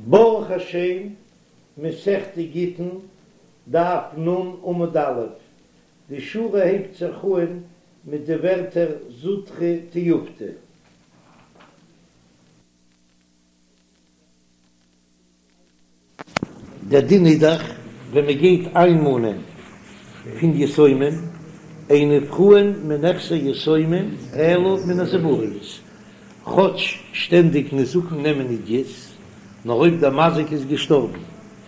ברוך השם, מסכת גיטין, דף נ עמוד א', די שורה הייבט זיך אהן מיט די ווערטער זוטרא תיובתא. דער דין איז דאך ווען מען גייט איינמאנען פון יתומים, אין נפרעין מנכסי יתומים אלא מן הזיבורית, כאטש שטענדיג נזקין נעמען עידית, נאר אויב דער מזיק איז געשטארבן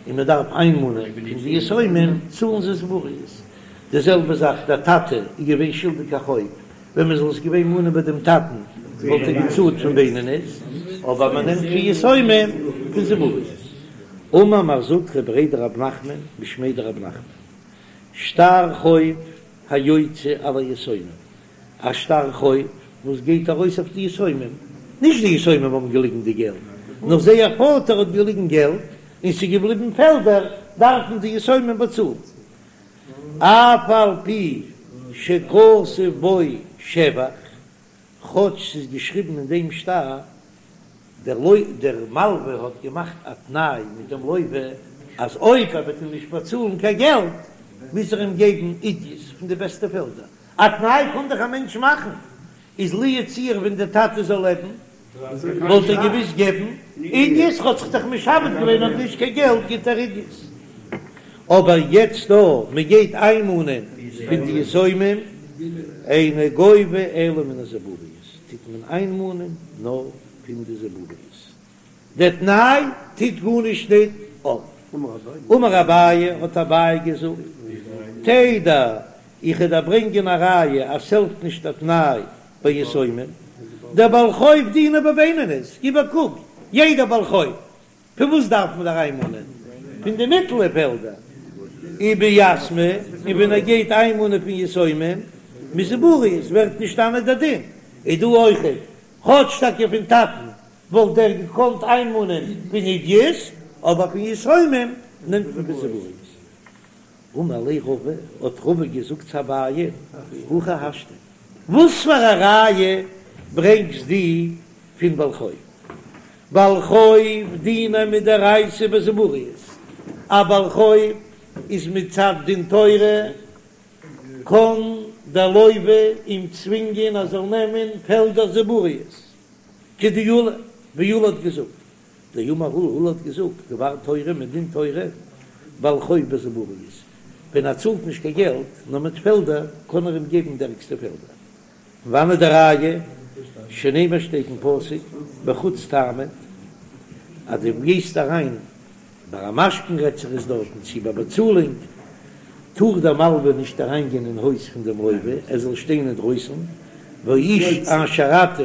און מען דארף איינמאנען פון די יתומים צאלן זיי זיבורית. די זעלבע זאך דער טאטע איז געווען שולדיג א חוב, ווען מען זאל עס געווען מאנען ביי דעם טאטן וואלט ער געצאלט פון בינונית, אבער מען נעמט פון יתומים פון זיבורית. אמר מר זוטרא בריה דרב נחמן משמיה דרב נחמן, שטר חוב היוצא על היתומים, א שטר חוב וואס גייט ארויס אויף די יתומים, נישט די יתומים האבן געליגן די געלט, נאר זייער פאטער האט געליגן געלט און ס'איז געבליבן פעלדער, דארפן די יתומים באצאלן. אף על פי שכתוב בו שבח, כאטש ס'איז געשריבן אין דעם שטר, דער דער מלווה האט געמאכט א תנאי מיט דעם לוה אז אויב ער וועט אים נישט באצאלן קיין געלט מוז ער אים געבן עידית פון די בעסטע פעלדער, א תנאי קען דאך א מענטש מאכן, איז לו יצוייר ווען דער טאטע זאל לעבן וואלט ער געוויס געבן עידית, האט זיך דאך משעבד געווען אויב נישט קיין געלט גיט ער עידית, אבער יעצט דא מען גייט איינמאנען פון די יתומים אינו גובה אלא מן הזיבורית, טוט מען איינמאנען נאר פון די זיבורית, דער תנאי טוט גארנישט ניט אויף. אמר אביי, האט אביי געזאגט, תדע, איך וועל דיר ברענגען א ראיה אז ס'העלפט נישט א תנאי ביי יתומים, דבעל חוב דיניה בבינונית, גיב א קוק, יעדער בעל חוב, פון וואס דארף מען אריינמאנען? פון די מיטעלע פעלדער, וביתמי, און ווען ער גייט איינמאנען פון יתומים, מזיבורית ווערט נשתנה דער דין, איז דא אויכעט, כאטש טאקע פון טאטן וואלט ער געקאנט איינמאנען פון עידית, אבער פון יתומים נעמט מען פון זיבורית. אמר ליה רבא, האט רבא געזאגט צו אביי, הכי השתא, וואס פאר א ראיה ברענגסט דו פון בעל חוב? בעל חוב דיניה מדאורייתא בזיבורית, א בעל חוב איז מצד דין תורה, קען דער לוה אים צווינגען ער זאל נעמען פעלדער זיבורית, כדעולא, ווי עולא האט געזאגט, דאמר עולא, עולא האט געזאגט, דבר תורה מדין תורה, בעל חוב בזיבורית, ווען ער צאלט נישט קיין געלט, נאר מיט פעלדער, קען ער אים געבן די ערגסטע פעלדער. פון וואנעט די ראיה? שנאמר שטייט אין פסוק, בחוץ תעמוד, אז דו גייסט אריין ביי א משכון רעדט זיך עס דארטן צי ביי באצאלונג, טאר דער מלווה נישט אריינגיין אין הויז פון דעם לוה, ער זאל שטיין אינדרויסן, והאיש אשר אתה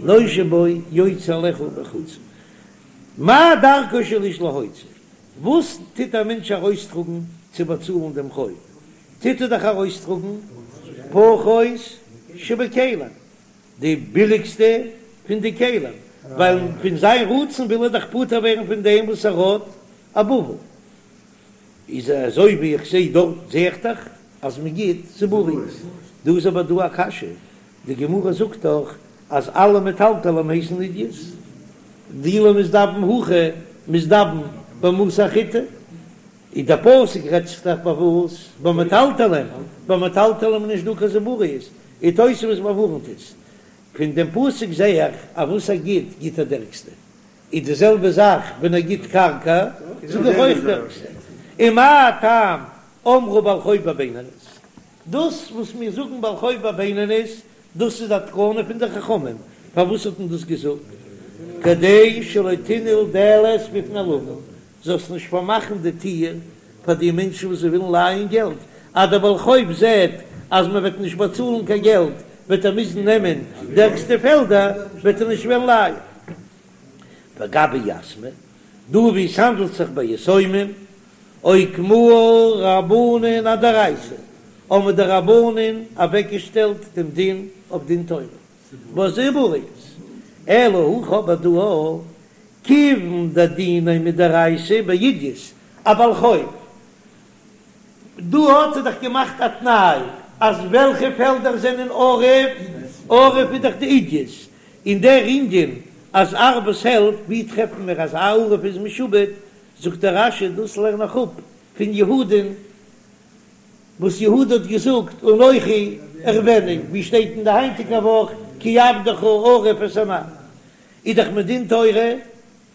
נושה בו יוצא אליך בחוץ. מה דרכו של איש להוציא? וואס טוט א מענטש ארויסטראגן צו באצאלן דעם חוב? טוט ער דאך ארויסטראגן פחות שבכלים, די ביליגסטע פון די כלים, ווייל פון זיין רצון וויל ער דאך פטור ווערן פון דעם וואס ער האט א בבל. איז אזוי ווי איך זעה דארט זעה איך דאך אז מען גיט זיבורית. דא איז אבער דא א קשיא, די גמרא זאגט דאך אז אלע מטלטלים הייסן עידית, דאי לא מזדבן הכא מזדבן במתא אחריתי, איז דער פסוק רעדט זיך דאך ביי וואס? ביי מטלטלים, ביי מטלטלים איז נישט דא קיין זיבורית, און תוספות באווארנט עס, פון דעם פסוק זעה איך אז וואס ער גיט, גיט ער די ערגסטע, איז די זעלבע זאך ווען ער גיט קרקע, זאג איך אויך די ערגסטע, און מה טעם אמרו בעל חוב בבינונית, דאס וואס מיר זאגן בעל חוב בבינונית, דאס איז א תקנה פון די חכמים, פארוואס האט מען דאס געזאגט? כדי שלא תנעול דלת בפני לווין, זאלסט נישט פארמאכן די טיר פאר די מענטשן וואס זיי ווילן לייען געלט, אז דער בעל חוב זעט אז מען וועט נישט באצאלן קיין געלט וועט ער מוזן נעמען די ערגסטע פעלדער, וועט ער נישט וועלן לייען. וגבי יתמי, דא ווי עס האנדלט זיך ביי יתומים, אוקמוה רבנן אדאורייתא, האבן די רבנן אוועקגעשטעלט דעם דין אויף דין תורה, בזיבורית, אלא הכא אבער דא, כיוון דדיניה מדאורייתא בעידית, א בעל חוב, דא האט ער דאך געמאכט א תנאי אז וועלכע פעלדער זענען ערב, ערב איז דאך די עידית, און דער ענין. אז ערבות העלפט, ווי טרעפן מיר אז א ערב איז משועבד, זאגט דער רש"י דאס לערן איך אפ פון יהודה'ן וואס יהודה האט געזאגט אנכי אערבנו, ווי שטייט אין די היינטיגע וואך כי עבדך ערב את הנער, איז דאך מדין תורה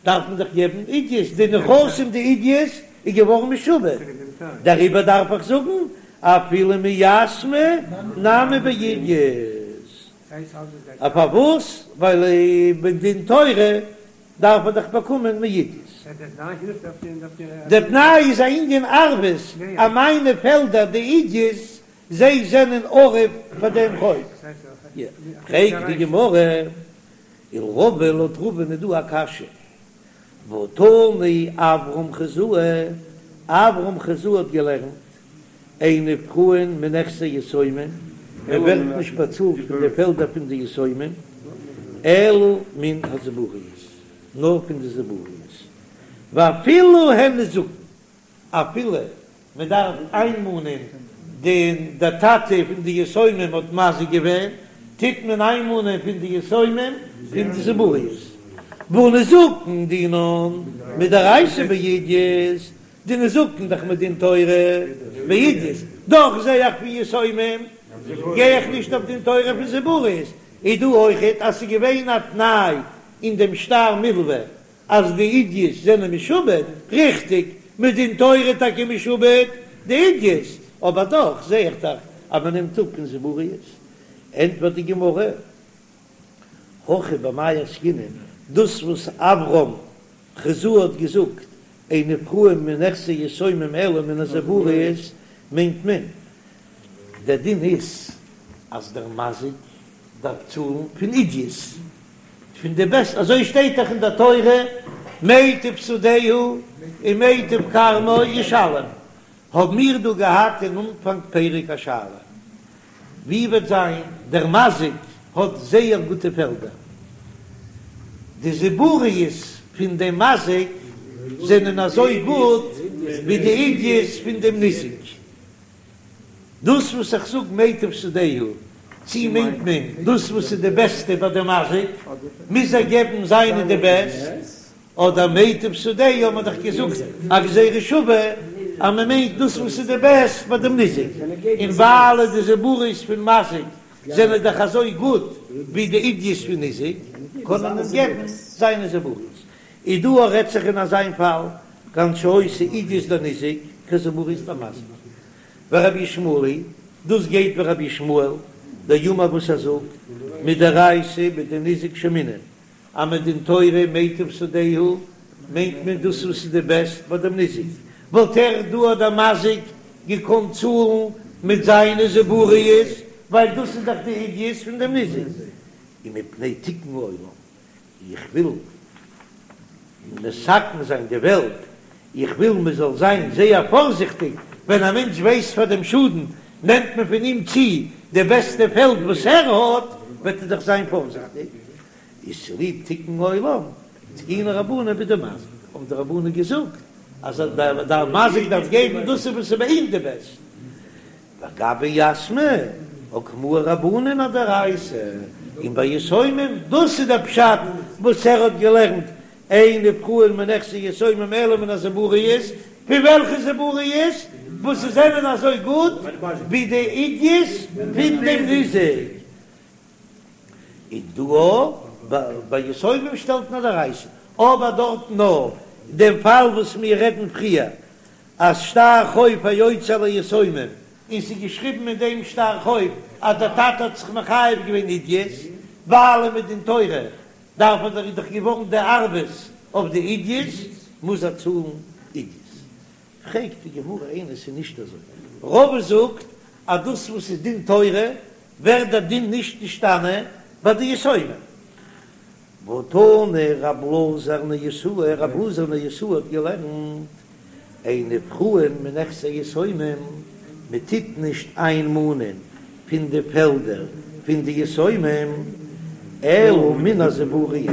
דארף מען דאך געבן עידית, די נכסים די עידית איז געווארן משועבד, דעריבער דארף איך זאגן אפילו מיתמי נמי בעידית. א פארוואס? ווייל מדין תורה דארף ער דאך באקומען מעידית. דער תנאי איז א ענין ערבות, אז מיינע פעלדער די עידית זיי זענען ערב פאר דעם חוב. פרעגט די גמרא, ולרבא לויט רבא'ן איז דא א קשיא, והא תני אברהם חוזאה, אברהם חוזאה האט געלערנט, אין נפרעין מנכסי יתומים, מען ווערט נישט באצאלט פון די פעלדער פון די יתומים, אלא מן הזיבורית, נאר פון די זיבורית, ואפילו הן נזקין, אפילו מען דארף איינמאנען די דער טאטע פון די יתומים האט מזיק געווען, טוט מען איינמאנען פון די יתומים פון די זיבורית, והא נזקין דינן מדאורייתא בעידית, די נזקין דאך מדין תורה בעידית, דאך זע איך פון יתומים גיי איך נישט אויף דין תורה פון זיבורית, איז דא אויכעט אז ס'איז געווען א תנאי אין דעם שטר מלוה אז די עידית זענען משועבד, ריכטיג, מדין תורה טאקע משועבד די עידית, אבער דאך זע איך דאך אז מען נעמט אפ פון זיבורית. ענטפערט די גמרא, הכא במאי עסקינן, דאס וואס אברהם חוזאה האט געזאגט אין נפרעין מנכסי יתומים אלא מן הזיבורית, מיינט מען, דער דין איז אז דער מזיק דארף צאלן פון עידית, פון די בעסט, אזוי שטייט דאך אין דער תורה, מיטב שדהו ומיטב כרמו ישלם, האבן מיר דא געהאט אין אנפאנג פרק א שאלה, ווי וועט זיין דער מזיק האט זייער גוטע פעלדער, די זיבורית פון דעם מזיק זענען אזוי גוט ווי די עידית פון דעם ניזק, דאס וואס איך זאג מיטב שדהו, צי מיינט מען דאס וואס איז די בעסטע ביי די מזיק, מוז ער געבן זיינע די בעסט, אדער מיטב שדהו האט מען דאך געזאגט א גזירה שווה אז מען מיינט דאס וואס איז די בעסט ביי דעם ניזק, און ווייל די זיבורית פון מזיק זענען דאך אזוי גוט ווי די עידית פון ניזק, קען מען אים געבן זיינע זיבורית. איז דא רעדט זיך אין אזיין פאל, כגון שהיתה עידית דניזק כזיבורית דמזיק. ורבי ישמעאל היא, דאס גייט ווי רבי ישמעאל דאמר וואס ער זאגט מדאורייתא בדניזק שיימינן אז מדין תורה מיטב שדהו מיינט מען דאס וואס איז די בעסט ביי דעם ניזק, וואלט ער דא דער מזיק געקאנט צאלן מיט זיינע זיבורית ווייל דאס איז דאך די עידית פון דעם ניזק, ומפני תיקון העולם איך וויל מתקן זיין די וועלט, איך וויל מען זאל זיין זייער פארזיכטיג, ווען א מענטש ווייסט פאר דעם שאדן, נעמט מען פון אים צו די בעסטע פעלד וואס ער האט, וועט ער דאך זיין פארזיכטיג. איז צוליב תיקון העולם, תקינו רבנן בדמזיק, האבן די רבנן געזאגט אז דער מזיק דארף געבן דאס וואס איז ביי אים די בעסט. וגבי יתמי אוקמוה רבנן אדאורייתא, און ביי יתומים, דאס איז דער פשט וואס ער האט געלערנט, אין נפרעין מנכסי יתומים אלא מן הזיבורית, פון וועלכע זיבורית? וואס זענען אזוי גוט ווי די עידית פון דעם ניזק. און דא ביי יתומים שטעלט מען אדאורייתא, אבער דארטן נאר דעם פאל וואס מיר רעדן פריער אז שטר חוב היוצא על היתומים, און ס'איז געשריבן אין דעם שטר חוב אז דער טאטע האט זיך מחייב געווען עידית, ווייל מדין תורה דארף ער דאך איז דאך געווארן די ערבות אויף די עידית, מוז ער צאלן עידית. פרעגט די גמרא איני ס'איז נישט אזוי, רבא זאגט אז דאס וואס איז דין תורה ווערט דער דין נישט נשתנה ביי די יתומים. והתני רב אלעזר ניוסאי, רב אלעזר ניוסאי האט געלערנט, אין נפרעין מנכסי יתומים, מען טוט נישט איינמאנען פון די פעלדער פון די יתומים, אלא מן הזיבורית,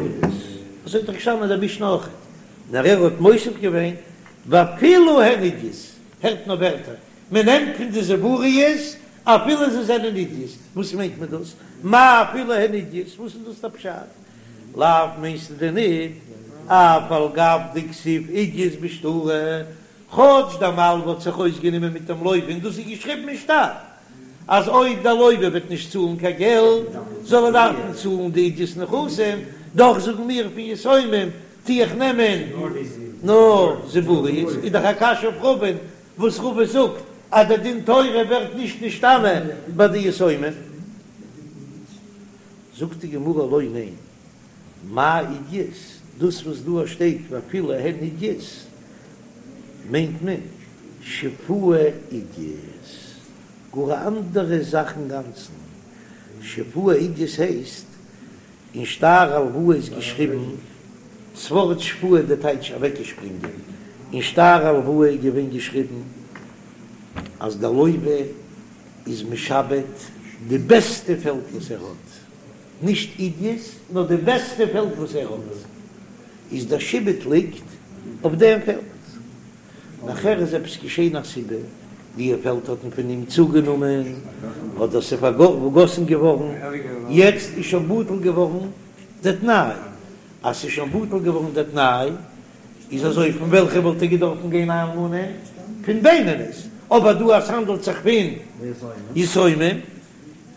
אזוי האט דאך געשטאנען אין דער משנה אויך, נאר ער האט מוסיף געווען, ואפילו הן עידית, הערט נאר ווערטער, מען נעמט פון די זיבורית אפילו זיי זענען עידית, וואס מיינט מען דאס? מאי אפילו הן עידית? וואס איז דאס דער פשט? לאו מיינסטו דען ניט אף על גב דכתיב עידית בשטרא, כאטש דער מלווה האט זיך אויסגענומען מיט דעם לוה און דאס איז געשריבן אין שטר אז אויב דער לוה וועט נישט צאלן קיין געלט זאל ער דארפן צאלן די עידית נכסים, דאך זאגן מיר פון יתומים טו איך נעמען נאר זיבורית, איז דאך א קשיא אויף רבא'ן וואס רבא זאגט אז דער דין תורה ווערט נישט נשתנה ביי די יתומים. זאגט די גמרא לא ניין, מאי עידית, דאס וואס דא שטייט ואפילו הן עידית מיינט מען שפועה עידית, גאר א אנדערע זאך אינגאנצן, שפועה עידית הייסט אין שטר הלוואה איז געשריבן ס'ווארט שפועה די טייטש אוועקגעשפרינגען, אין שטר הלוואה איז געווען געשריבן אז דער לוה איז משעבד די בעסטע פעלד וואס ער האט, נישט עידית נאר די בעסטע פעלד וואס ער האט, איז דער שעבוד ליגט אויף דעם פעלד. נאכער איז עפעס געשען א סיבה, די פעלד האט מען פון אים צוגענומען, אדער ס'איז פארגאסן געווארן, יעצט איז שוין בטל געווארן די תנאי, אז ס'איז שוין בטל געווארן די תנאי, איז אזוי פון וועלכע וואלט ער געדארפן גיין איינמאנען? פון בינונית, אבער דא אז ס'האנדלט זיך פון יתומים,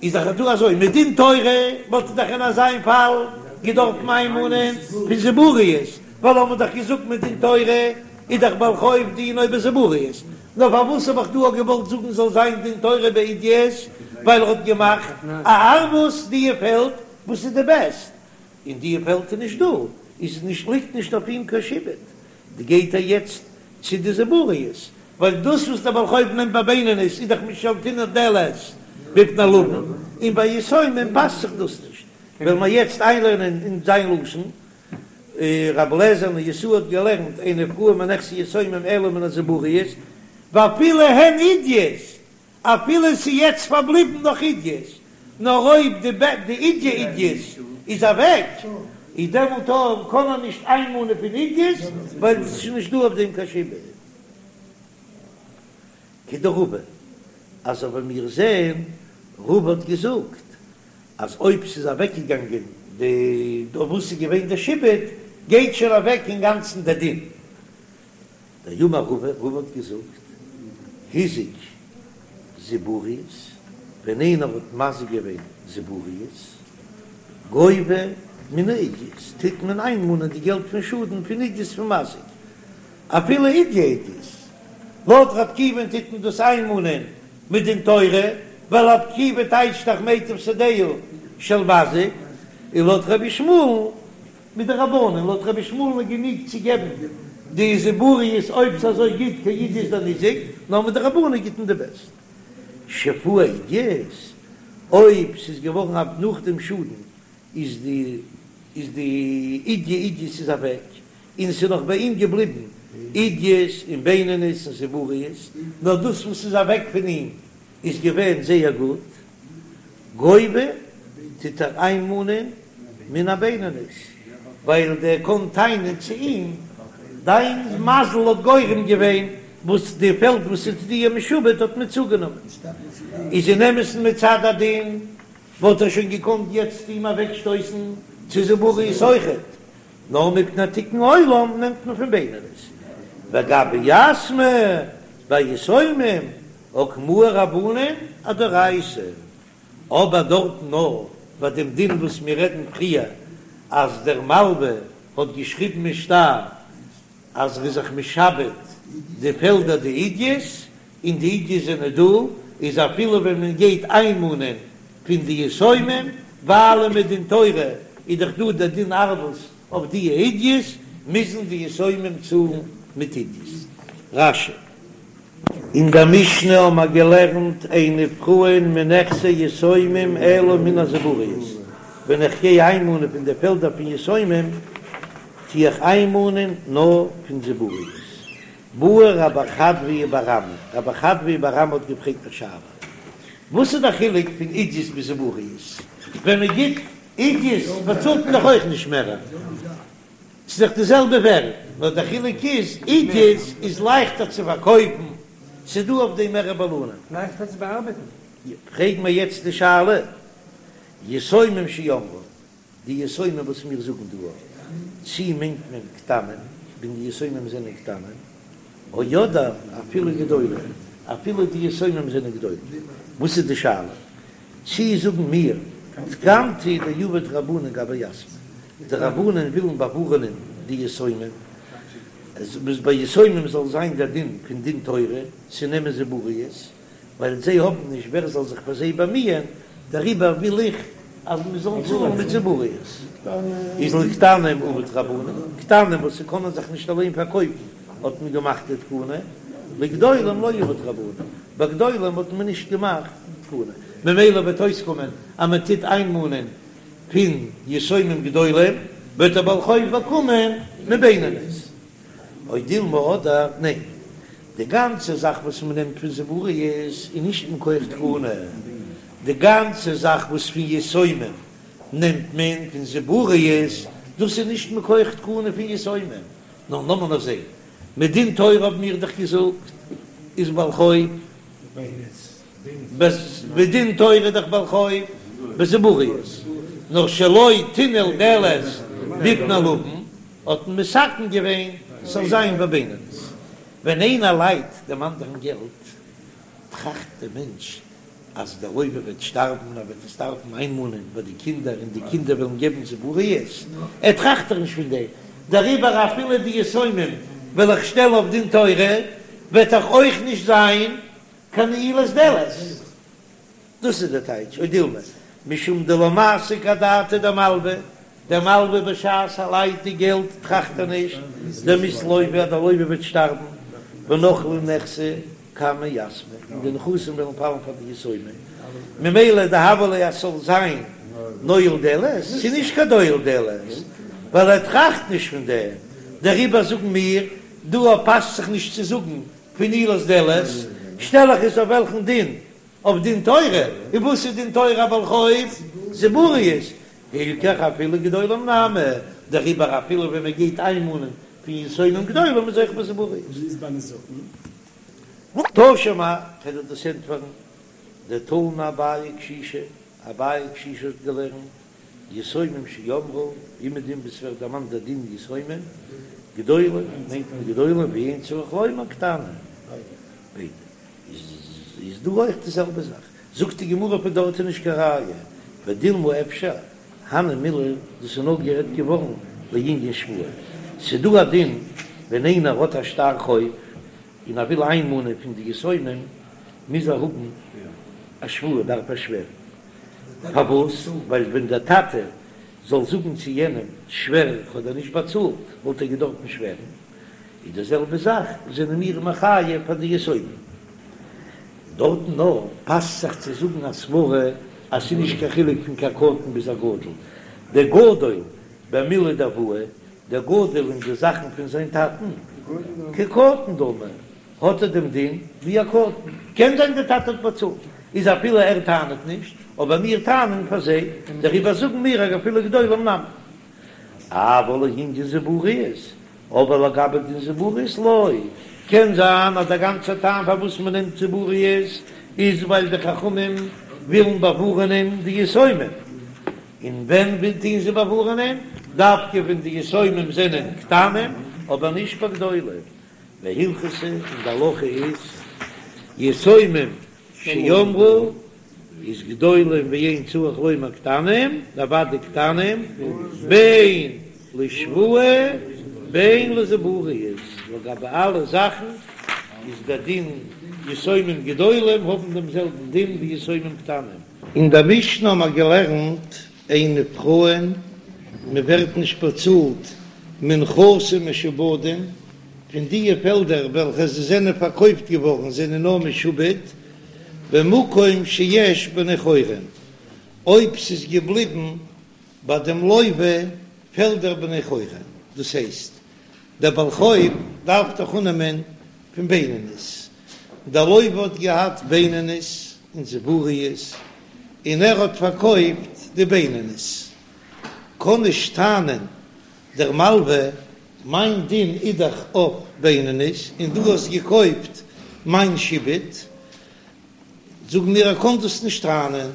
איז דאך דא אזוי, מדין תורה וואלט ער דאך אין אזיין פאל געדארפן איינמאנען פון זיבורית, ווייל האבן מיר דאך געזאגט מדין תורה איז דאך בעל חוב דינו בזיבורית, נאר פארוואס האב איך דא געוואלט זאגן זאל זיין דין תורה בעידית, ווייל ער האט געמאכט א ערבות די פעלד וואס איז די בעסט, און די פעלד איז נישט דא, איז נישט ליגט נישט אויף אים קיין שעבוד, די גייט ער יעצט צו די זיבורית, ווייל דאס וואס דער בעל חוב נעמט ביי בינונית איז דאך משלתינן דלת בפני לווין, און ביי יתומים פאסט זיך דאס נישט, וועלן מיר יעצט איינלערנען אין זיין לשון, רבי אליעזר נשיאה האט געלערנט אין נפרעין מנכסי יתומים אלא מן הזיבורית, ואפילו הן עידית, אפילו ס'איז יעצט פארבליבן נאך עידית, נאר אויב די די עידית עידית איז אוועק, איז דעמאלט אויך קען מען נישט איינמאנען פון עידית, ווייל עס איז נישט דא אויף דעם קיין שעבוד. כדרבא, אזוי ווי מיר זעהן, רבא האט געזאגט אז אויב ס'איז אוועקגעגאנגען די אויף וואס איז געווען די שעבוד, גייט שוין אוועק אינגאנצן די דין. דאמר רבא, רבא האט געזאגט, הזיק זיבורית, ווען איינער האט מזיק געווען זיבורית, גובה מן העידית, טוט מען איינמאנען די געלט פון שאדן פון עידית פון מזיק, אפילו עידית עידית, לויט ר' עקיבא'ן טוט מען דאס איינמאנען מדין תורה, ווייל ר' עקיבא טייטשט דאך מיטב שדהו של מזיק, און לויט רבי ישמעאל'ן מדרבנן, לויט רבי ישמעאל'ן איז גענוג צו געבן די זיבורית אויב ס'איז אזוי גוט כעידית דניזק, נאר מדרבנן גיט מען די בעסט. שפועה עידית, אויב ס'איז געווארן א נאך דעם שאדן איז די איז די עידית עידית איז אוועק, און ס'איז נאך ביי אים געבליבן עידית און בינונית און זיבורית, נאר דאס וואס איז אוועק פון אים איז געווען זייער גוט, גובה טוט ער איינמאנען מן הבינונית, ווייל דער קען טענה'ן צו אים, דיין מזל האט גורם געווען וואס די פעלד וואס איז דיר משועבד האט מען צוגענומען, איז אין אמת'ן מצד הדין וואלט ער שוין געקאנט יעצט אים אוועקשטויסן צו זיבורית אויכעט, נאר מפני תיקון עולם נעמט מען פון בינונית, וגבי יתמי ביי יתומים אוקמוה רבנן אדאורייתא, אבער דארטן נאר ביי דעם דין וואס מיר רעדן פריער אז דער מלווה האט געשריבן אין שטר אז ער איז זיך משעבד די פעלדער די עידית, און די עידית זענען דא, איז אפילו ווען מען גייט איינמאנען פון די יתומים, ווייל מדין תורה איז דאך דא דער דין ערבות אויף די עידית, מוזן די יתומים צאלן מיט עידית. רש"י. אין דער משנה האבן מיר געלערנט אין נפרעין מנכסי יתומים אלא מן הזיבורית, ווען איך גיי איינמאנען פון די פעלדער פון יתומים, טו איך איינמאנען נאר פון זיבורית. בעי רב חדביה בר אמי, רב חדביה בר אמי האט געפרעגט א שאלה, וואס איז דער חילוק פון עידית ביז זיבורית? ווען מען גיט עידית באצאלט מען דאך אויך נישט מער, ס'איז דאך די זעלבע ווערד, נאר דער חילוק איז עידית איז לייכטער צו פארקויפן, ס'איז דא אויף דעם מער בעלנים. לייכטער צו באארבעטן. פרעג מיר יעצט די שאלה, יתומים שאמרו. די יתומים וואס מיר זאגן דא, צי מיינט מען קטנים, ווען די יתומים זענען קטנים, או אדער אפילו גדולים, אפילו די יתומים זענען גדולים. וואס איז די שאלה? צי זאגן מיר תקנתא דעבוד רבנן גבי יתמי, די רבנן ווילן באווארענען די יתומים, אז ביי יתומים זאל זיין דער דין פון דין תורה צו נעמען זיבורית, ווייל זיי האבן נישט ווער זאל זיך פאר זיי באמיען, דעריבער וויל איך אז מען זאל צאלן מיט זיבורית. איז לקטנים עבוד רבנן, קטנים וואס ס'קענען זיך נישט אליין פארקויפן האט מען געמאכט די תקנה, לגדולים לא עבוד רבנן, ביי גדולים האט מען נישט געמאכט תקנה, ממילא וועט אויסקומען אז מען טוט איינמאנען פון יתומים גדולים, וועט דער בעל חוב באקומען מבינונית. או דילמא אדער ניין, די גאנצע זאך וואס מען נעמט פון זיבורית איז נישט מכח תקנה, די גאנצע זאך וואס פון יתומים נעמט מען פון זיבורית, דאס איז נישט מכח תקנה פון יתומים, נאר לאמיר נאר זען, מדין תורה האבן מיר דאך געזאגט איז בעל חוב, מדין תורה איז דאך בעל חוב בזיבורית, נאר שלא תנעול דלת בפני לוין האט מען מתקן געווען ס'זאל זיין בבינונית, ווען איינער לייט דעם אנדערן געלט טראכט דער מענטש אז דער לוה וועט שטארבן און ער וועט עס דארפן איינמאנען ביי די קינדער און די קינדער וועלן געבן זיבורית, ער טראכט דאך נישט פון דעם, דעריבער אפילו די יתומים וועל איך שטעלן אויף דין תורה וועט דאך אויך נישט זיין קיין נעילת דלת. דאס איז דער טייטש או דילמא משום דלא מסיק אדעתיה דמלוה, דער מלוה בשעת ער לייט די געלט טראכט ער נישט דמית לוה אז דער לוה וועט שטארבן ונחלי נכסי קמי יתמי און די נכסים וועלן פאלן פאר די יתומים ממילא דהוה ליה אז ס'זאל זיין נועל דלת, ס'איז נישט קיין נועל דלת ווייל ער טראכט נישט פון דעם, דעריבער זאגן מיר דא פאסט זיך נישט צו זאגן פון נעילת דלת, שטעל איך עס אויף וועלכן דין? אויף דין תורה, און וואס איז דין תורה א בעל חוב? זיבורית, הילכך אפילו גדולים נמי, דעריבער אפילו ווען מען גייט איינמאנען פון יתומים גדולים איז אויך בזיבורית. ווי איז ביי נזקין? תא שמע, קען איך דאס ענטפערן, דתנא אביי קשישא, אביי קשישא האט געלערנט, יתומים שאמרו, אומעדום וואו ס'ווערט דערמאנט דער דין יתומים, גדולים מיינט מען גדולים ואין צריך לומר קטנים, ביידע. איז דא אויך די זעלבע זאך? זאגט די גמרא פון דארט איז נישט קיין ראיה, ודילמא אפשר, הני מילי, דאס איז נאר גערעדט געווארן לענין שבועה, ס'איז דא א דין ווען איינער האט א שטר חוב און ער וויל איינמאנען פון די יתומים מוז ער האבן א שבועה, דארף ער שווערן, פארוואס? ווייל ווען דער טאטע זאל זאגן צו יענעם שווער איך האב דיר נישט באצאלט וואלט ער געדארפן שווערן, איז די זעלבע זאך זענען מיר מחייב פאר די יתומים. דארטן נאר פאסט זיך צו זאגן א סברה אז ס'איז נישט קיין חילוק פון קיין קטן ביז א גדול, דער גדול במילי דאבוה, דער גדול אין די זאכן פון זיין טאטן, כקטן דמי, האט ער דעם דין ווי א קטן, קען זיין דער טאטע האט באצאלט, איז אפילו ער טענה'ט נישט, אבער מיר טענה'ן פאר זיי, דעריבער זאגן מיר אז אפילו גדולים נמי. אבל לענין זיבורית, אבער לגבי דין זיבורית לא, קען זיין אז דער גאנצער טעם פארוואס מען נעמט זיבורית איז ווייל די חכמים ווילן באווארענען די יתומים, און ווען טוען זיי באווארענען? דווקא ווען די יתומים זענען קטנים, אבער נישט ביי גדולים. והלכתא, און די הלכה איז, יתומים שאמרו איז גדולים ואין צריך לומר קטנים, אוודאי קטנים, בין לשבועה בין לזיבורית, לגבי אלע זאכן איז דער דין יתומים גדולים האבן דעם זעלבן דין ווי יתומים קטנים. אין דער משנה האבן מיר געלערנט אין נפרעין, מען ווערט נישט באצאלט מנכסים משועבדים, פון דיע פעלדער וועלכע זיי זענען פארקויפט געווארן זענען נאר משועבד במקום שיש בני חורין, אויב ס'איז געבליבן ביי דעם לוה פעלדער בני חורין, דאס הייסט דער בעל חוב דארף דאך אננעמען פון בינונית, דער לוה האט געהאט בינונית און זיבורית און ער האט פארקויפט די בינונית, קען נישט טענה'ן דער מלווה מיין דין איז דאך אויף בינונית און דו האסט געקויפט מיין שעבוד, זאגן מיר ער קען דאס נישט טענה'ן,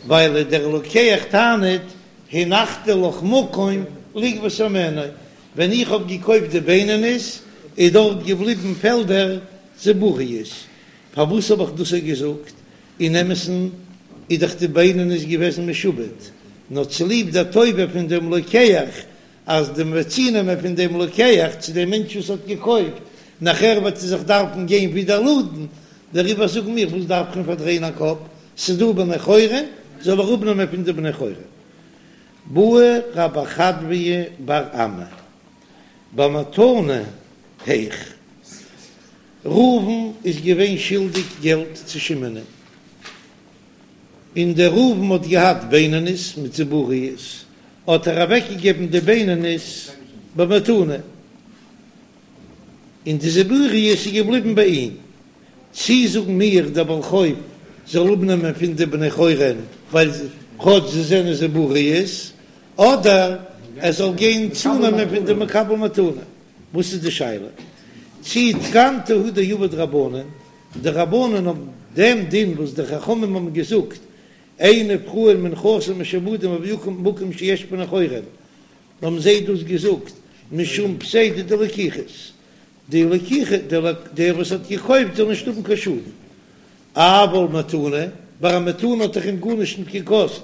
ווייל דער לוקח טענה'ט. הנחתי לך מקום לגבות הימנו, ווען איך האב געקויפט די בינונית איז דארט געבליבן פעלדער זיבורית, פארוואס האב איך דאס געזאגט? אין אמת'ן איז דאך די בינונית געוועזן משועבד, נאר צוליב דער טובה פון דעם לוקח, אז די מ'וועט צונעמען פון דעם לוקח צו דעם מענטש וואס האט געקויפט, נאכער וועט ער זיך דארפן גיין ווידער לאדן, דעריבער זאגן מיר, וואס דארף איך אים פארדרייען א קאפ, ס'איז דא בני חורין, זאל ער אפנעמען פון די בני חורין. בעי רב חדביה בר אמי במתנה היאך. ראובן איז געווען שולדיג געלט צו שמעונ'ען, און דער ראובן האט געהאט בינונית מיט זיבורית, האט ער אוועקגעגעבן די בינונית במתנה, און די זיבורית איז געבליבן ביי אים. צי זאגן מיר דער בעל חוב זאל אפנעמען פון די בני חורין ווייל כאטש זיי זענען זיבורית, אדער ער זאל גיין צונעמען פון די מקבל מתנה? וואס איז די שאלה? צי תקנתא הוא דעבוד רבנן, די רבנן האבן דעם דין וואס די חכמים האבן געזאגט, אין נפרעין מנכסים משועבדים במקום שיש בני חורין, האבן זיי דאס געזאגט משום פסידא דלקוחות, די לקיחה, דער וואס האט געקויפט זאל נישט האבן קיין שאדן, אבל מתנה, ביי א מתנה האט דאך אים גארנישט נישט געקאסט,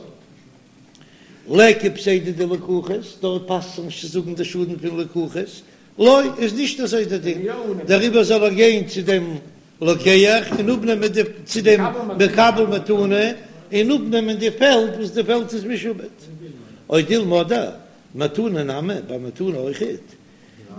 ליכא פסידא דלקוחות, דארט פאסט זיך נישט צו זאגן די שאדן פון לקוחות, לא, איז נישט אזוי דער דין, דעריבער זאל ער גיין צו דעם לוקח און אפנעמען די, צו דעם מקבל מתנה און אפנעמען די פעלד וואס די פעלד איז משועבד. או דילמא אדער מתנה נמי, ביי מתנה אויכעט,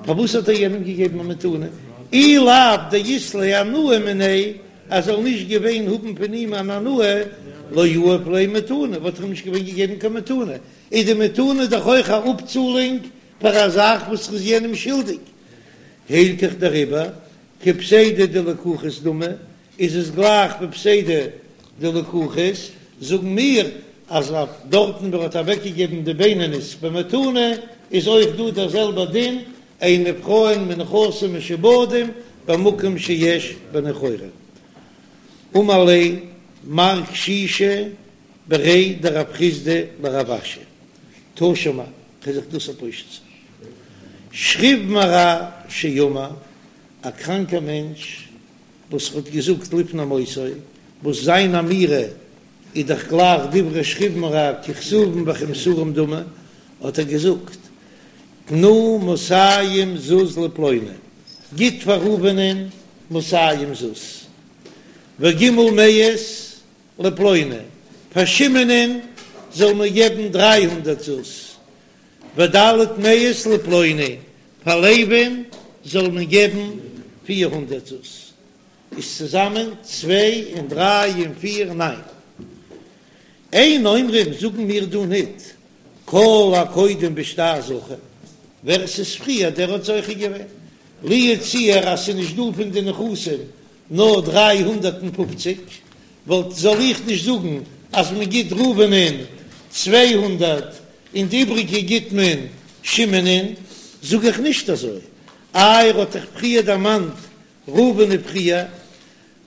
פארוואס האט ער יענעם געגעבן א מתנה? אי לאו דאית ליה הנאה מיניה, אז ער זאל נישט געווען האבן פון אים אן הנאה, לא יהב ליה מתנה, וואלט ער אים נישט געווען געגעבן קיין מתנה, איז די מתנה דאך אויך א אפצאלונג פאר א זאך וואס ער איז יענעם שולדיג. הילכך דעריבער, כפסידא דלקוחות דמי, איז עס גלייך ווי פסידא דלקוחות, זאגן מיר אז אויף דארטן וואו ער האט אוועקגעגעבן די בינונית במתנה איז אויך דא דער זעלבער דין, אין נפרעין מנכסים משועבדים במקום שיש בני חורין. אמר ליה מר קשישא בריה דרב חסדא לרב אשי, תא שמע, כ'וועל זיך דאס פושט זיין. שכיב מרע שאמר, א קראנקער מענטש וואס האט געזאגט לפני מותו, וואס זיין אמירה איז דאך גלייך דברי שכיב מרע ככתובים וכמסורים דמי, האט ער געזאגט, תנו מאתים זוז לפלוני, גיט פאר ראובנ'ען מאתים זוז, וג' מאות לפלוני, פאר שמעונ'ען זאל מען געבן דריי הונדערט זוז, וד' מאות לפלוני, פאר לוי'ן זאל מען געבן 400 זוז, איז צוזאמען צוויי און דריי און פיר ניין. אין אומרים זאגן מיר דא ניט כל הקודם בשטר זכה, ווער עס איז פריער דער האט זוכה געווען, לו יצוייר אז ס'איז נישט דא פון די נכסים נאר 350, וואלט זאל איך נישט זאגן אז מען גיט ראובנ'ען 200 און די איבריגע גיט מען שמעונ'ען, זאג איך נישט אזוי, איי ער האט דאך פריער דערמאנט ראובן פריער,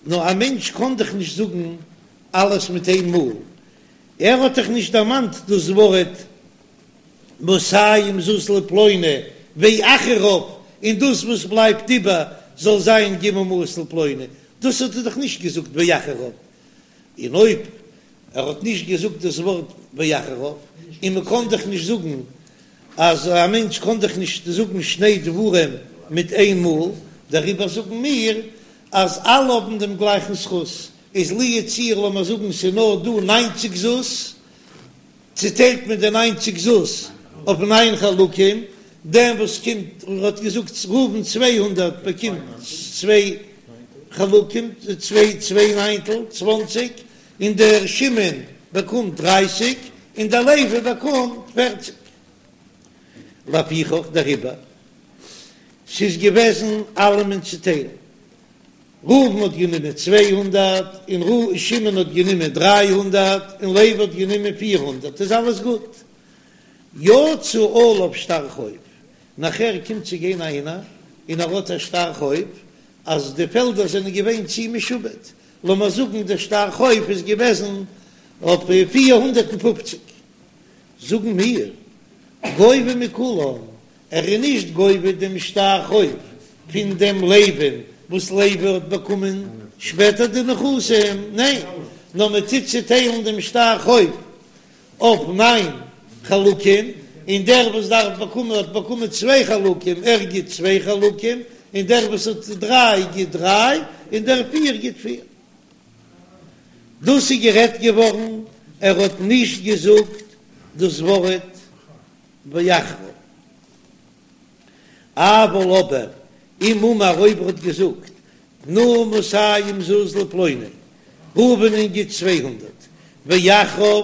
נאר א מענטש קען דאך נישט זאגן אלעס מיט איין מאל, ער האט דאך נישט דערמאנט דאס ווארט מאתים זוז לפלוני ואחריו, און דאס וואס בלייבט איבער זאל זיין ג' מאות לפלוני, דאס האט ער דאך נישט געזאגט ואחריו, און אויב ער האט נישט געזאגט דאס ווארט ואחריו, און מען קען דאך נישט זאגן אז א מענטש קען דאך נישט זאגן שני דברים מיט איין מאל, דעריבער זאגן מיר אז אלע האבן דעם גלייכן זכות, איז לו יצוייר לאמיר זאגן ס'איז נאר דא ניינציג זוז, צוטיילט מען די ניינציג זוז אויף ניין חלקים, דעם וואס קומט און האט געזאגט ראובן 200 באקומט צוויי חלקים, צוויי צוויי ניינטל, צוואנציג, און דער שמעון באקומט דרייסיג, און דער לוי באקומט פערציג. לפיכך דעריבער, ס'איז געוועזן אלעמען צוטיילן, ראובן האט גענומען 200, און שמעון האט גענומען 300, און לוי האט גענומען 400, איז אלעס גוט. יצא עליו שטר חוב, נאכער קומט צו גיין איינער און ער האט א שטר חוב אז די פעלדער זענען געווען צו משועבד, לאמיר זאגן דער שטר חוב איז געוועזן אויף 450. זאגן מיר, גובה מכולן, ער איז נישט גובה דעם שטר חוב פון דעם לוי'ן וואס לוי האט באקומען שפעטער די נכסים, ניין, נאר מען טוט צוטיילן דעם שטר חוב אויף ניין חלקים, און דער וואס דארף באקומען האט באקומען צוויי חלקים, ער גיט צוויי חלקים, און דער וואס האט דריי גיט דריי, און דער פיר גיט פיר. דאס איז גערעדט געווארן, ער האט נישט געזאגט דאס ווארט ואחריו. אבל אבער אם אמר אויב ער האט געזאגט תנו מאתים זוז לפלוני, ראובנ'ען גיט 200, ואחריו,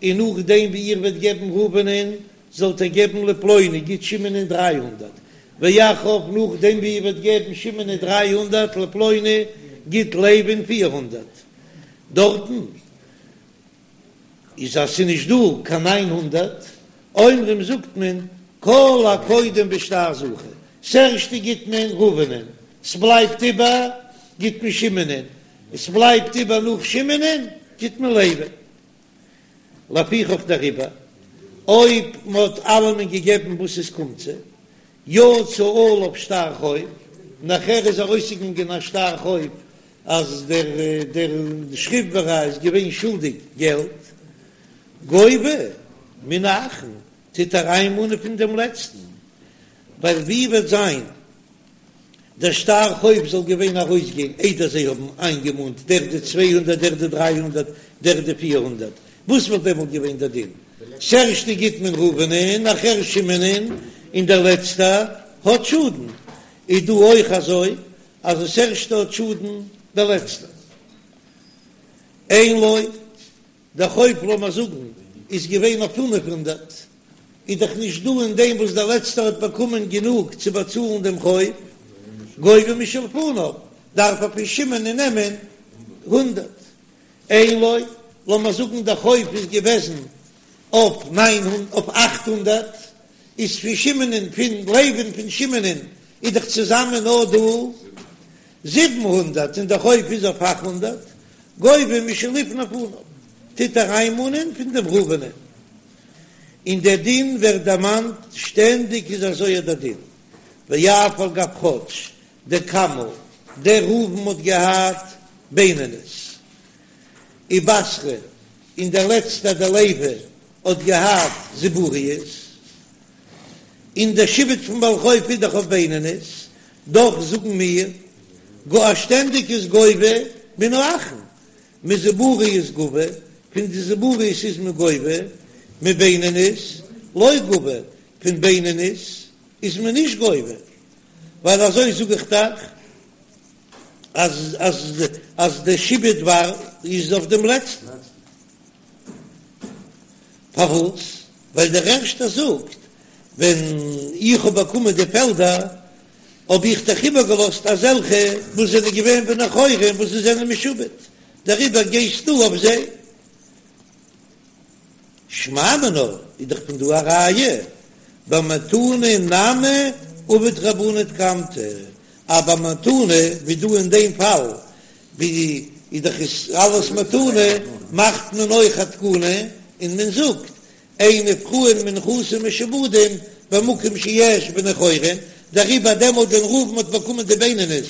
און נאכדעם ווי איר וועט געבן ראובנ'ען זאלט איר געבן לפלוני, גיט שמעונ'ען 300, ואחריו, נאכדעם ווי איר וועט געבן שמעונ'ען 300, לפלוני, גיט לוי'ן 400. דארטן איז אז ס'איז נישט דא קיין 900, אומרים זאגט מען כל הקודם בשטר זכה, ס'ערשטע גיט מען ראובנ'ען, ס'בלייבט איבער גיט מען שמעונ'ען, ס'בלייבט איבער נאך שמעונ'ען גיט מען לוי'ן. לפיכך דעריבער אויב מ'האט אלעמען געגעבן וואס עס קומט זיי, יצא עליו שטר חוב, נאכער איז ארויסגעגאנגען א שטר חוב אז דער דער שכיב מרע איז געווען שולדיג געלט, גובה מן האחרון, טוט ער איינמאנען פון דעם לעצטן, ווייל ווי וועט זיין דער שטר חוב זאל געווען ארויסגיין איידער זיי האבן איינגעמאנט דער די 200 דער די 300 דער די 400, וואס וואלט דעמאלט געווען דער דין? ס'ערשטע גיט מען ראובנ'ען, נאכער שמעונ'ען, און דער לעצטער האט שאדן, איז דא אויך אזוי אז דאס ערשטע האט שאדן דער לעצטער? אין לו, דער חוב לאמער זאגן איז געווען אויף 500, איז דאך נישט דא אין דעם וואס דער לעצטער האט באקומען גענוג צו באצאלן דעם חוב, גובה משלפניו, דארף ער פון שמעונ'ען נעמען הונדערט. אין לו, לאמער זאגן דער חוב איז געוועזן אויף ניין אויף 800, איז פון שמעונ'ען פון לוי'ן פון שמעונ'ען איז דאך צוזאמען נאר דא 700 און דער חוב איז אויף 800, גובה משלפני פניו, טוט ער איינמאנען פון דעם ראובנ'ען. און דער דין ווערט דערמאנט שטענדיג איז אזוי דער דין, ואף על גב כאטש דקמא דער ראובן האט געהאט בינונית ובתרא און דער לעצטער דער לוי האט געהאט זיבורית, און דער שעבוד פון בעל חוב איז דאך אויף בינונית, דאך זאגן מיר גאר שטענדיג איז גובה מן האחרון, מזיבורית גבי, פון די זיבורית איז מען גובה, מבינונית לא גבי, פון בינונית איז מען נישט גובה, ווייל אזוי זאג איך דאך אז אז אז די שעבוד וואר איז אויף דעם לעצטן. פארוואס? ווייל דער ערשטער זאגט, ווען איך האב באקומען די פעלדער האב איך דאך איבערגעלאזט אזעלכע וואס זענען געווען בני חורין וואס זיי זענען משועבד, דעריבער גייסטו אויף זיי. שמע מינה איז דאך פון דא א ראיה, במתנה נמי עבוד רבנן תקנתא, אז ביי מתנה ווי דא אין דעם פאל ווי איז דאך עס אלעס מתנה, מאכט מען אויך א תקנה און מען זאגט אין נפרעין מנכסים משועבדים במקום שיש בני חורין, דעריבער דעמאלט ווען ראובן האט באקומען די בינונית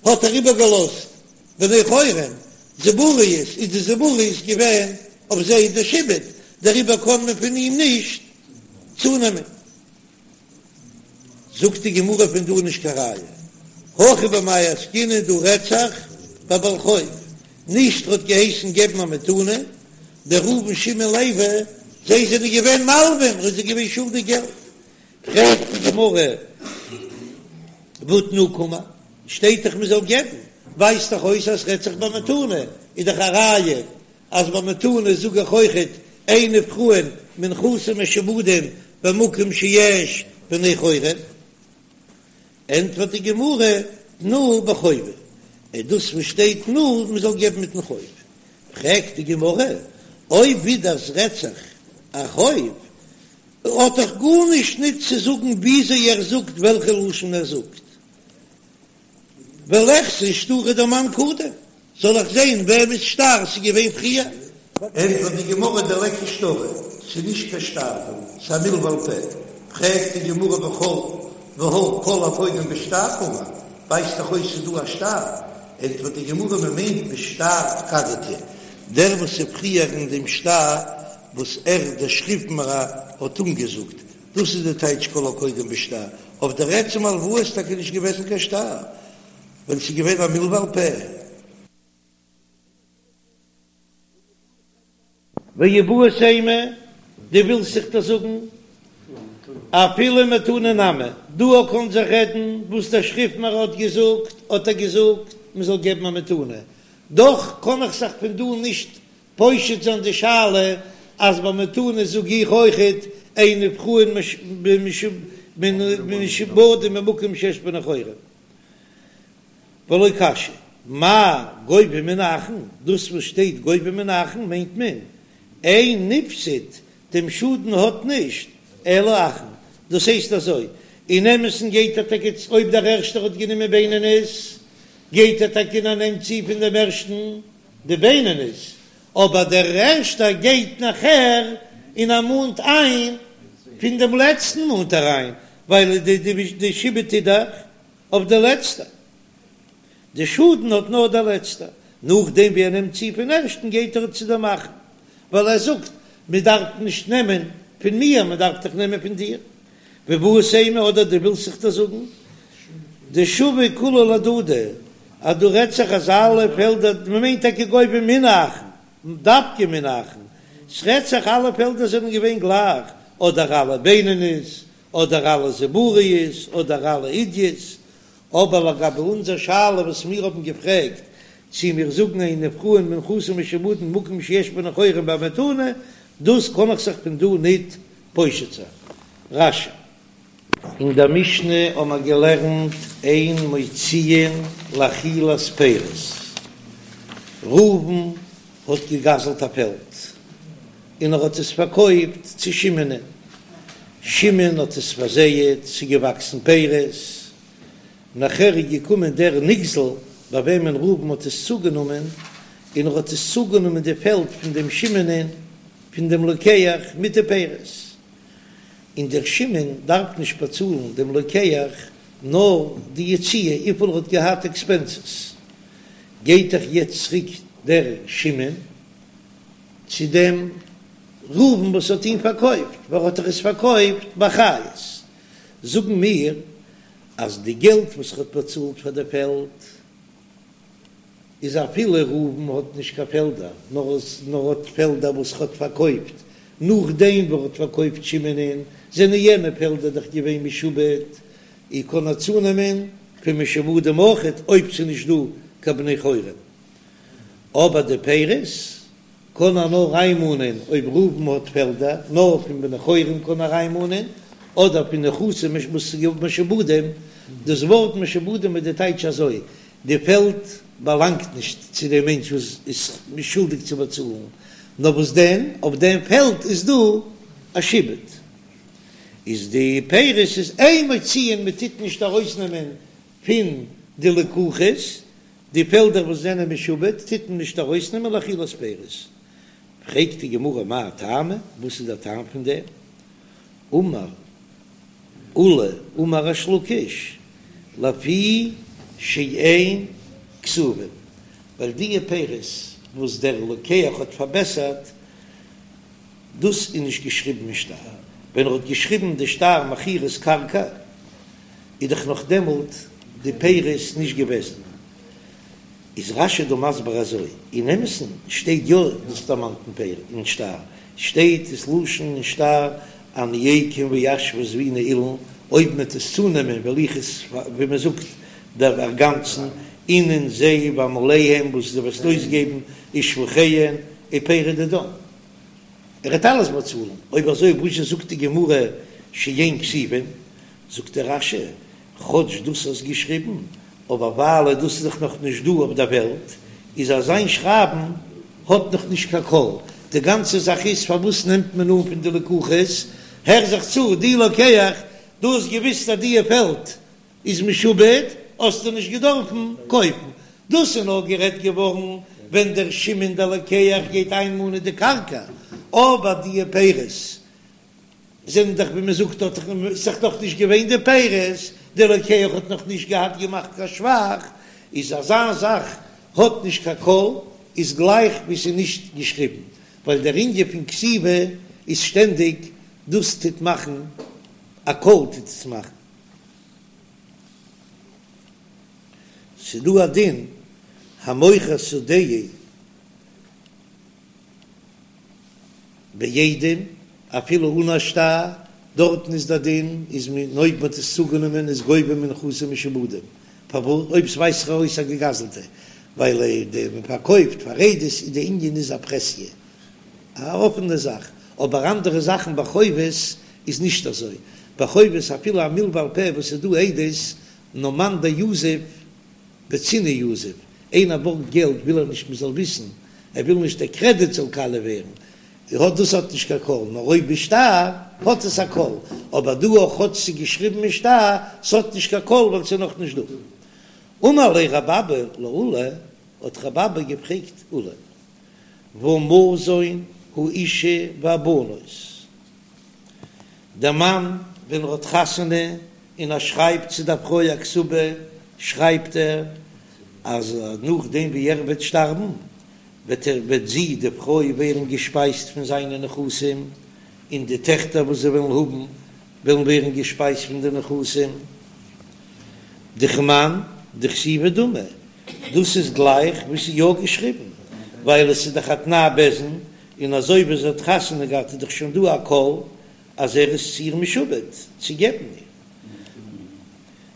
האט ער איבערגעלאזט בני חורין, זיבורית איז די זיבורית געווען אויף זיי די שעבוד, דעריבער קען מען פון אים נישט צונעמען. זאגט די גמרא פון דא נישט קיין ראיה, הכא במאי עסקינן דא רעדט זיך ביי בעל חוב, נישט ר'האט געהייסן געבן א מתנה, דער ראובן שמעון לוי זיי זענען געווען מלווים, ר'איז זיי געווען שולדיג געלט, פרעגט די גמרא והא תנו קאמר, שטייט דאך מ'זאל געבן, ווייזט דאך אויס אז ס'רעדט זיך ביי מתנה, איז דאך א ראיה אז ביי מתנה זאג איך אויכעט אין נפרעין מנכסים משועבדים במקום שיש בני חורין, ענטפערט די גמרא תנו בחובה, איז דאס וואס שטייט תנו מען זאל געבן מיטן חוב, פרעגט די גמרא אויב ווידער ס'רעדט זיך א חוב האט דאך גארנישט ניט צו זאגן וויאזוי ער זאגט וועלכע לשון ער זאגט. וליחזי שטרא דמאן קדים, זאל איך זען וועמענס שטר ס'איז געווען פריער? ענטפערט די גמרא דליכא שטרא, ס'איז נישט קיין שטר דא, ס'איז א מלוה על פה. פרעגט די גמרא וכל והא כל הקודם בשטר קאמר, ווייזט דאך אויס ס'איז דא א שטר, ענטפערט די גמרא מ'מיינט בשטר פקדתא, דער וואס איז פריער אין דעם שטר וואס ער דער שכיב מרע האט אנגעזאגט, דאס איז די טייטש כל הקודם בשטר, אויף דער עצם הלוואה איז טאקע נישט געוועזן קיין שטר, ווייל ס'איז געווען א מלוה על פה. ואיבעית אימא, דו ווילסט זיך דאס זאגן? אפילו מתנה נמי, דא קען זיך רעדן וואס דער שכיב מרע האט געזאגט, האט ער געזאגט מען זאל געבן א מתנה, דאך קען איך זיך פון דא נישט פושט זיין די שאלה אז ביי מתנה זאג איך אויכעט אין נפרעין משועבדים במקום שיש בני חורין. ולא קשיא, מאי גובה מן האחין, דאס וואס שטייט גובה מן האחין מיינט מען אין נפסד, דעם שאדן האט נישט אלא אחין, דאס הייסט אזוי, אין אמת'ן גייט ער טאקע אויב דער ערשטער האט גענומען בינונית, גייט ער טאקע און ער נעמט צו פון דעם ערשטן די בינונית, אבער דער ערשטער גייט נאכער און ער מאנט איין פון דעם לעצטן מאנט ער איין, ווייל די שעבוד איז דאך אויף די לעצטע. די שאדן האט נאר דער לעצטער. נאכדעם ווי ער נעמט צו פון ערשטן גייט ער צו דעם אחרון, ווייל ער זאגט מען דארף נישט נעמען פון מיר מען דארף דאך נעמען פון דיר. ואיבעית אימא אדער דו ווילסט זיך דאס זאגן דשוו כולהו להדדי אז דא רעדט זיך אז אלע פעלדער מען מיינט טאקע גובה מן האחין דווקא מן האחין ס'רעדט זיך אלע פעלדער זענען געווען גלייך אדער אלע בינונית אדער אלע זיבורית אדער אלע עידית, אבער לגבי אונזער שאלה וואס מיר האבן געפרעגט צי מיר זאגן אין נפרעין מנכסים משועבדים במקום שיש בני חורין במתנה, דאס קען איך זיך פון דא ניט פושט זיין. רש"י. אין דער משנה האבן מיר געלערנט אין מוציאין לאכילת פירות, ראובן האט געגזלט א פעלד, און ער האט עס פארקויפט צו שמעונ'ען, שמעון האט עס פארזייעט, ס'איז געוואקסן פירות, נאכער איז געקומען דער נגזל ביי וועמען ראובן האט עס צוגענומען, און ער האט עס צוגענומען די פעלד פון דעם שמעונ'ען, פון דעם לוקח מיט די פירות, און דער שמעון דארף נישט באצאלן דעם לוקח נאר די יציאה וויפיל ער האט געהאט עקספענסעס, גייט דאך יעצט צוריק דער שמעון צו דעם ראובן וואס האט אים פארקויפט, ווייל ער האט דאך עס פארקויפט באחריות, זאגן מיר אז די געלט וואס ער האט באצאלט פאר די פעלד איז אפילו ראובן האט נישט קיין פעלדער, נאר נאר האט פעלדער וואס ער האט פארקויפט נאכדעם וואס ער האט פארקויפט שמעונ'ען, זענען יענע פעלדער דאך געווען משועבד, און קען ער צונעמען פון משועבדים אויכעט אויב ס'איז נישט דא קיין בני חורין. אבער די פירות קען ער נאר איינמאנען אויב ראובן האט פעלדער, נאר פון בני חורין קען ער איינמאנען, אדער פון נכסים משועבדים, דאס ווארט משועבדים איז די טייטש אזוי, די פעלד באלאנגט נישט צו דעם מענטש וואס איז שולדיג צו באצאלן, נאר וואס דען, אויף דעם פעלד איז דא א שעבוד, איז די פירות איז אין מוציאין, מען טוט נישט ארויסנעמען פון די לקוחות, די פעלדער וואס זענען משועבד טוט מען נישט ארויסנעמען לאכילת פירות. פרעגט די גמרא מאי טעמא, וואס איז דער טעם פון דעם? אמר עולא אמר ריש לקיש, לפי שאין כתובין, ווייל די פירות וואס דער לוקח האט פארבעסערט, דאס איז נישט געשריבן אין שטר, ווען ער האט געשריבן די שטר מכירת קרקע, איז דאך נאך דעמאלט די פירות נישט געוועזן. איז רש"י דא מסביר אזוי, אין אמת'ן שטייט יא דאס דערמאנט אין פרק אין שטר, שטייט דאס לשון אין שטר אני אקום ואשוה זביני אילן, אויב מ'עט עס צונעמען וועל איך עס ווי מ'זאגט דערגאנצן, אינון זיי ועמליהן וואס דו וועסט אויסגעבן ושבחיהן ופירי דידן. ער וועט אלעס באצאלן, אויב אזוי וואזשע זאגט די גמרא שאין כתובין? זאגט דער רש"י, כאטש דאס האסט געשריבן, אבער ווייל דאס איז דאך נאך נישט דא אויף דער וועלט, איז אזיין שרייבן האט נאך נישט קיין קול, די גאנצע זאך איז פארוואס נעמט מען אן פון די לקוחות, הער זיך צו, דו לוקח, דו האסט געוויסט אז דיע פעלד איז משועבד, האסטו נישט געדארפן קויפן, דאס איז נאר גערעדט געווארן ווען דער שמעון דער לוקח גייט איינמאנען די קרקע, אבער די פירות זענען דאך ווי מען זאגט האט דאך נאך נישט געווען די פירות, דער לוקח האט נאך נישט געהאט געמאכט קיין שבח, איז אזא זאך האט נישט קיין קול, איז גלייך ווי ס'איז נישט געשריבן, ווייל דער ענין פון כתיבה איז שטענדיג דאס טוט מאכן א קול טוט עס מאכן. ס'דא א דין המוכר שדהו בעדים, אפילו אן א שטר, דארטן איז דער דין איז מען אויב מען האט עס צוגענומען איז גובה מנכסים משועבדים, פארוואס אויב ס'ווייזט זיך ארויס א געגזלטע, ווייל די מען פארקויפט פאר עדות איז די ענין איז א פרהסיא, א אפענע זאך, אבער אנדערע זאכן ביי חובות איז נישט אזוי, ביי חובות אפילו א מלוה על פה וואס איז דא עדות, נאר מאן דיזיף בצנעא יזיף, איינער בארגט געלט וויל ער נישט מ'זאל וויסן, ער וויל נישט דער קרעדיט זאל קאליע ווערן, האט דאס האט נישט קיין קול, נאר אויב בשטר האט עס א קול, אבער דא אויך כאטש ס'איז געשריבן אין שטר, ס'האט נישט קיין קול ווייל ס'איז נאך נישט דא. אמר ליה רב אבא לעולא, האט רב אבא געפרעגט עולא, והא מזון האשה והבנות, דער מאן ווען ער האט חתונה און ער שרייבט צו דער פרוי א כתובה, שרייבט ער אז נאכדעם ווי ער וועט שטארבן וועט ער וועט זי די פרוי ווערן געשפייזט פון זיינע נכסים, און די טעכטער וואס זיי וועלן האבן וועלן ווערן געשפייזט פון די נכסים. דכמאן דכתיבה דמי, דאס איז גלייך ווי ס'איז יא געשריבן, ווייל עס איז דאך א תנאי בית דין, און אזוי ווי זי האט חתונה געהאט איז דאך שוין דא א קול אז ער איז צו איר משועבד צו געבן איר.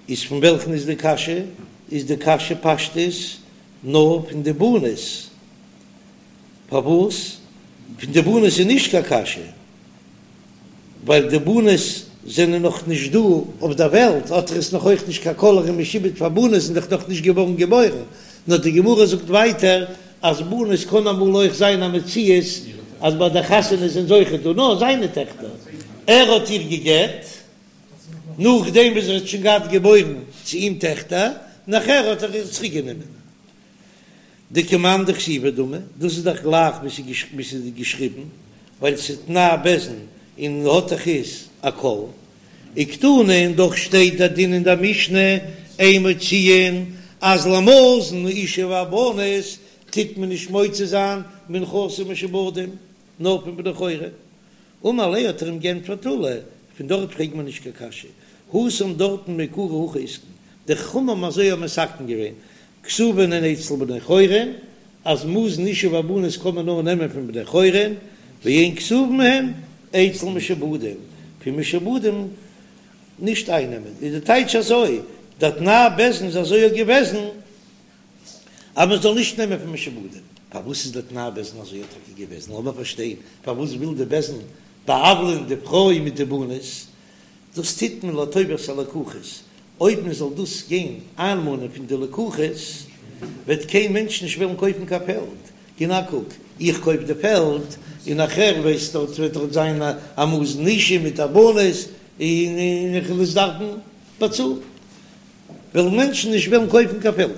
איז פון וועלכן איז די קשיא? איז די קשיא פשטות נאר פון די בנות? פארוואס פון די בנות איז נישט קיין קשיא? ווייל די בנות זענען נאך נישט דא אויף דער וועלט, האט ער עס נאך אויך נישט קיין קול ער איז משועבד פאר בנות זענען דאך נאך נישט געווארן געבוירן, נאר די גמרא זאגט ווייטער אז בנות קען אמאל אויך זיין א מציאות אז ביי די חתונה זענען זיי אויכעט דא, נאר זיינע טעכטער, ער האט איר גע'גט נאכדעם וואס ער האט שוין געהאט געבוירן צו אים טעכטער, נאכער האט ער איר צוריק גענומען. דכמאן דכתיבה דמי, דאס איז דאך גלייך ווי ס'איז געשריבן, ווייל ס'איז תנאי בית דין און האט דאך איז א קול. וקתני און דאך שטייט דער דין אין דער משנה אין מוציאין אז למזון האשה והבנות טוט מען נישט מוציא זיין מנכסים משועבדים נאר פון בני חורין. אמר ליה האט ער אים גענטפערט עולא, פון דארט פרעגט מען נישט קיין קשיא, התם דארטן מעיקרא הכי אתקון, די חכמים האבן אזוי האבן מתקן געווען, כתובין הן אצל בני חורין, אז מזון אשה והבנות קען מען נאר נעמען פון בני חורין, ואין כתובין הן אצל משועבדים, פון משועבדים נישט אייננעמען, איז די טייטש אזוי, דער תנאי בית דין איז אזוי געוועזן אז מען זאל נישט נעמען פון משועבדים, פארוואס איז דער תנאי בית דין אזוי טאקע געוועזן, לאמיר פארשטיין, פארוואס וויל די בית דין בא'עוולה'ן די פרוי מיט די בנות, דאס טוט מען לטובת הלקוחות, אויב מען זאל דאס גיין איינמאנען פון די לקוחות, וועט קיין מענטש נישט וועלן קויפן קיין פעלד, גיב א קוק, איך קויף די פעלד, און נאכער ווייסט דארט וועט דארט זיין א מזון אשה מיט א בנות, און איך וועל עס דארפן באצאלן, וועלן מענטשן נישט וועלן קויפן קיין פעלד.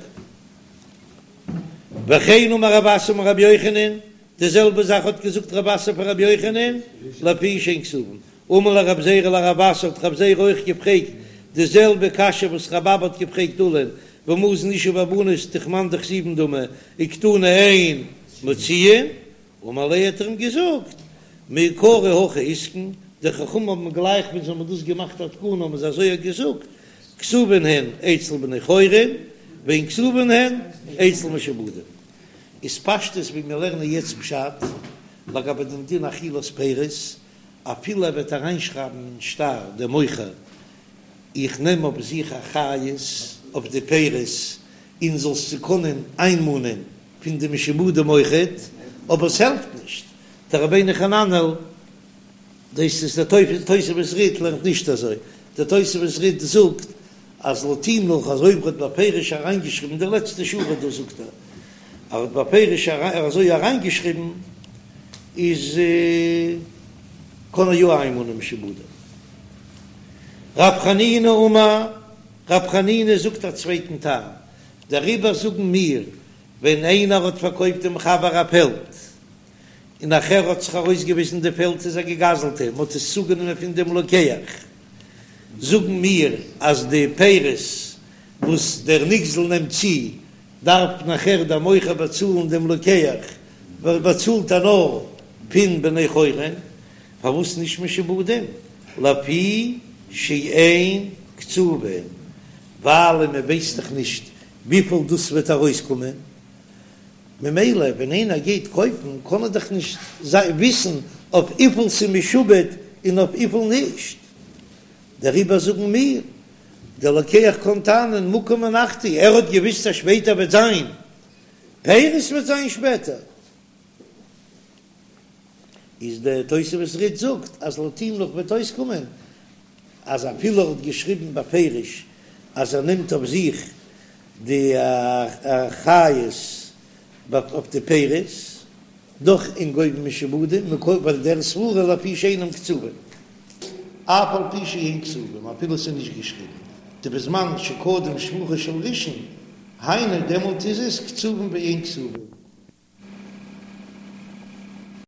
וכן אמר רב אסי אמר רבי יוחנן, די זעלבע זאך האט געזאגט רב אסי פאר רבי יוחנן, לפי שאין כתובין. אמר ליה רב זירא לרב אסי האט רב זירא אויך געפרעגט די זעלבע קשיא וואס רב אבא האט געפרעגט עולא'ן, והא מזון אשה והבנות דכמאן דכתיבן דמי וקתני אין מוציאין, אמר ליה האט ער אים געזאגט מעיקרא הכי אתקון, די חכמים האבן גלייך ווען זיי האבן דאס געמאכט א תקנה האבן זיי אזוי געזאגט, כתובין הן אצל בני חורין ואין כתובין הן אצל משועבדים. איז פשטות ווי מיר לערנען יעצט פשט לגבי דעם דין אכילת פירות, אפילו ער וועט אריינשרייבן אין שטר דער מוכר איך נעם אויף זיך אחריות אויף די פירות און זאלסט זיי קענען איינמאנען פון די משועבדים אויכעט, אבער עס העלפט נישט, דער רבינו חננאל, דאס איז דער תוספות רי"ד לערנט נישט אזוי, דער תוספות רי"ד זאגט אז לויט אים נאך אז אויב ער האט בפירוש אריינגעשריבן די לעצטע שורה דא זאגט ער אז ער האט בפירוש אזוי אריינגעשריבן איז קען ער יא איינמאנען משועבדים. רב חנינא אמר, רב חנינא זאגט א צווייטן טעם, דעריבער זאגן מיר ווען איינער האט פארקויפט דעם חבר א פעלד. און נאכער האט זיך ארויסגעוויזן די פעלד איז א געגזלטע, מען האט עס צוגענומען פון דעם לוקח, זאגן מיר אז די פירות וואס דער נגזל נעמט צו דארף נאכער דער מוכר באצאלן דעם לוקח, ווייל באצאלט ער נאר פון בני חורין, פארוואס נישט משועבדים? לפי שאין קצובין, ווייל מען ווייסט דאך נישט וויפיל דאס וועט ארויסקומען, ממילא ווען איינער גייט קויפן קען ער דאך נישט וויסן אויף וויפיל ס'איז משועבד און אויף וויפיל נישט, דעריבער זאגן מיר, דער לוקח קען טענה'ן מקום הנחתי, ער האט געוויסט אז שפעטער וועט זיין פירות וועט זיין שפעטער. איז דער תוספות רי"ד זאגט אז לויט אים נאך וועט אויסקומען אז אפילו ער האט געשריבן בפירוש אז ער נעמט אויף זיך די אחריות אויף די פירות, דאך אין גובין משועבדים ווייל דער סברא לפי שאינם קצובים אף על פי שאין כתובים אפילו ס'איז נישט געשריבן דבזמן שקדם שבחו של ראשון היינו דעמאלט איז עס קצובים ואין כתובים.